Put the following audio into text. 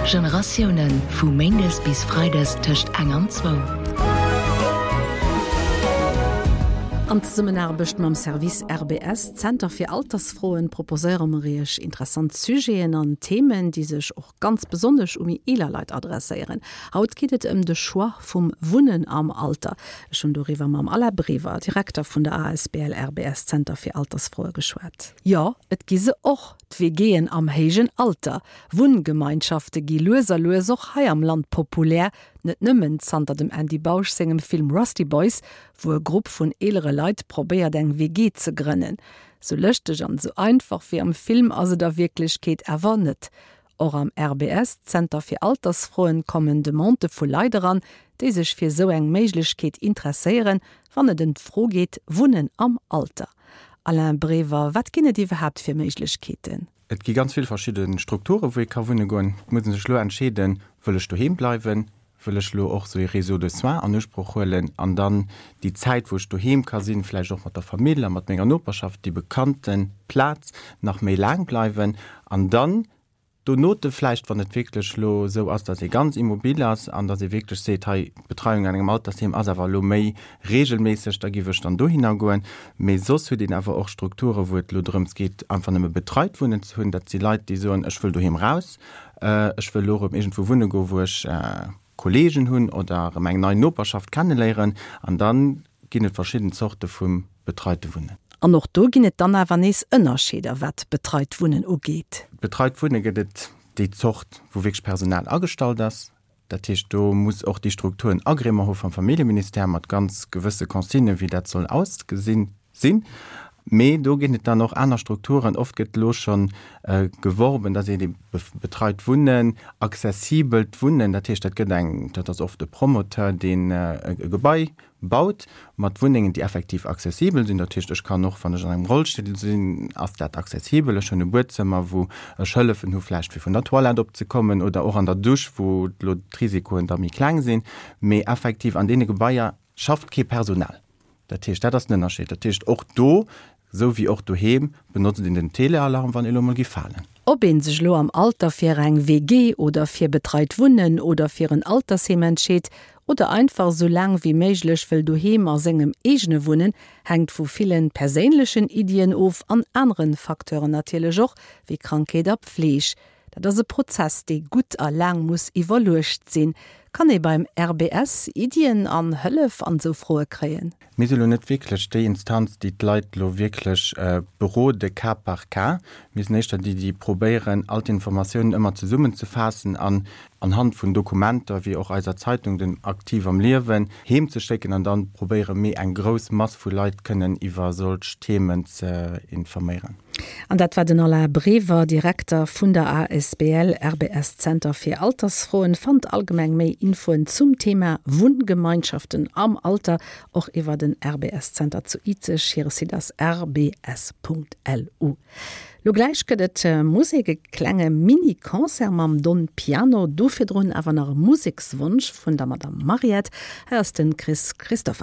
Generatiounen, vu méindes bis freides tëscht eng an zwou. An Zesummenaarbecht mam Service RBS, Zenter fir Altersfroen, proposéiere mer Iech interessant Sujeten an Themen, déi sech och ganz besonnesch u méi eeler Leit adresséieren. Haut geet et ëm de Choix vum Wunnen am Alter. Ech hunn doriwwer mam Alain Brever, Direkter vun der asbl RBS Zenter fir Altersfroe geschwat. Jo, et gi se och, d'WGen am héijen Alter. Wunngemeinschafte gi lues a lues och hei am Land populär, net nëmmen zanter dem Andy Bausch sengem Film Rusty Boys, wou e Grupp vun eelere Leit probéiert eng WG ze grënnen. Sou lëschteg an sou einfach wéi am Film ass et a Wierklechkeet awer net. Och am RBS Zenter fir Altersfroen kommen Demandë vu Leit eran, déi sech fir sou eng Méiglechkeet interesséieren, wann et ëm d'Fro geet, Wunnen am Alter. Alain Brever, wat ginn et iwwerhaapt fir Méiglechkeeten? Et gi ganz vill verschidde Strukturen, wou ee ka wunne goen. Et muss ee sech elo entscheeden, Wëll ech doheem bleiwen? Wëll ech elo och esou ee Réseau de soins an Usproch huelen an dann déi Zäit, wou ech doheem ka sinn, vläicht och mat der Famill a mat menger Noperschaft, déi bekannte Plaz, nach méi laang bleiwen? An dann donote vläicht, wann et wierklech elo esou ass, datt ee ganz immobil ass an datt ee wierklech seet, hei, d'Betreiung an engem Altersheem ass awer elo méi reegelméisseg, da giff ech dann dohinner goen. Mee soss huet een awer och Strukture wou et elo drëms geet, einfach nëmme betreit Wunnen ze hunn. Dat si Leit, déi soen, ech wëll doheem raus, ech wëll elo erëm iergendwou wunne goen, wou ech Kolleegen hunn oder erëm eng nei Noperschaft kenneléieren. An da ginn et verschidden Zorte vu betreite Wunnen. An och do ginn et dann awer nees Ënnerscheeder, wat betreit Wunnen ugeet. Betreit Wunne gëtt et déi Zort, wou wierklech Personal agestallt ass. Dat heescht, do muss och déi Struktur en Agrément hu vum Familljeministère mat ganz gewësse Consignen, wéi dat soll ausgesinn sinn. Mee do ginn et dann och aner Strukturen. Oft gëtt elo scho geworben, dass een ebe betreit Wunnen, accessibelt Wunnen, dat heescht, dat gëtt eng, dat ass oft e Promoteur, deen e Gebai baut mat Wunnengen, déi effektiv accessibel sinn. Dat heescht, ech kann och, wann ech an engem Rollstull sinn, ass dat accessibel. Ech hunn e Buedzëmmer, wou ech Hëllefen hu vläicht fir vun der Toilette opzekommen oder och an der Dusch, wou elo d'Risikoen da méi kleng sinn. Mee effektiv an deene Gebaier schafft kee Personal. Dat heescht, dat ass den Ënnerscheed. Dat heescht, och do, esou wéi och doheem, benotzt een den Telealarm, wann ee lo mol géif falen. Ob een sech elo am Alter fir eng WG oder fir betreit Wunnen oder fir en Altersheem entscheet oder einfach esou laang wéi méiglech wëll doheem a sengem eegene wunnen, hänkt vu villen perséinlechen Iddien of an aneren Facteuren natierlech och, wéi Krankheet a Pfleeg. Dat ass e Prozess, dee gutt a laang muss iwwerluecht sinn. Kann ee beim RBS Iddien an Hëllef an esou Froe kréien? Mir si lo net wierklech déi Instanz, déi d'Leit lo wierklech berode cas par cas. Mir sinn éischter déi, déi probéieren, all d'Informatiounen ëmmer zesummenzefaassen an anhand vun Dokumenter, wéi och eiser Zeitung, den Aktiv am Liewen, heemzeschécken an dann probéiere méi eng grouss Mass vu Leit kënnen iwwer solch Themen ze informéieren. An dat war den Alain Brever, Direkter vun der asbl RBS Zenter fir Altersfroen. Fannt allgemeng méi Infoen zum Thema Wunngemeinschaften am Alter och iwwer den RBS Zenter zu Izeg. Hire Site ass rbs.lu. Lo gläich gëtt et Musek, e klenge Mini-Concert mam Don Piano. Do virdrun awer nach e Musekswonsch vun der Madame Mariette. Hei ass de Chris Christofferson.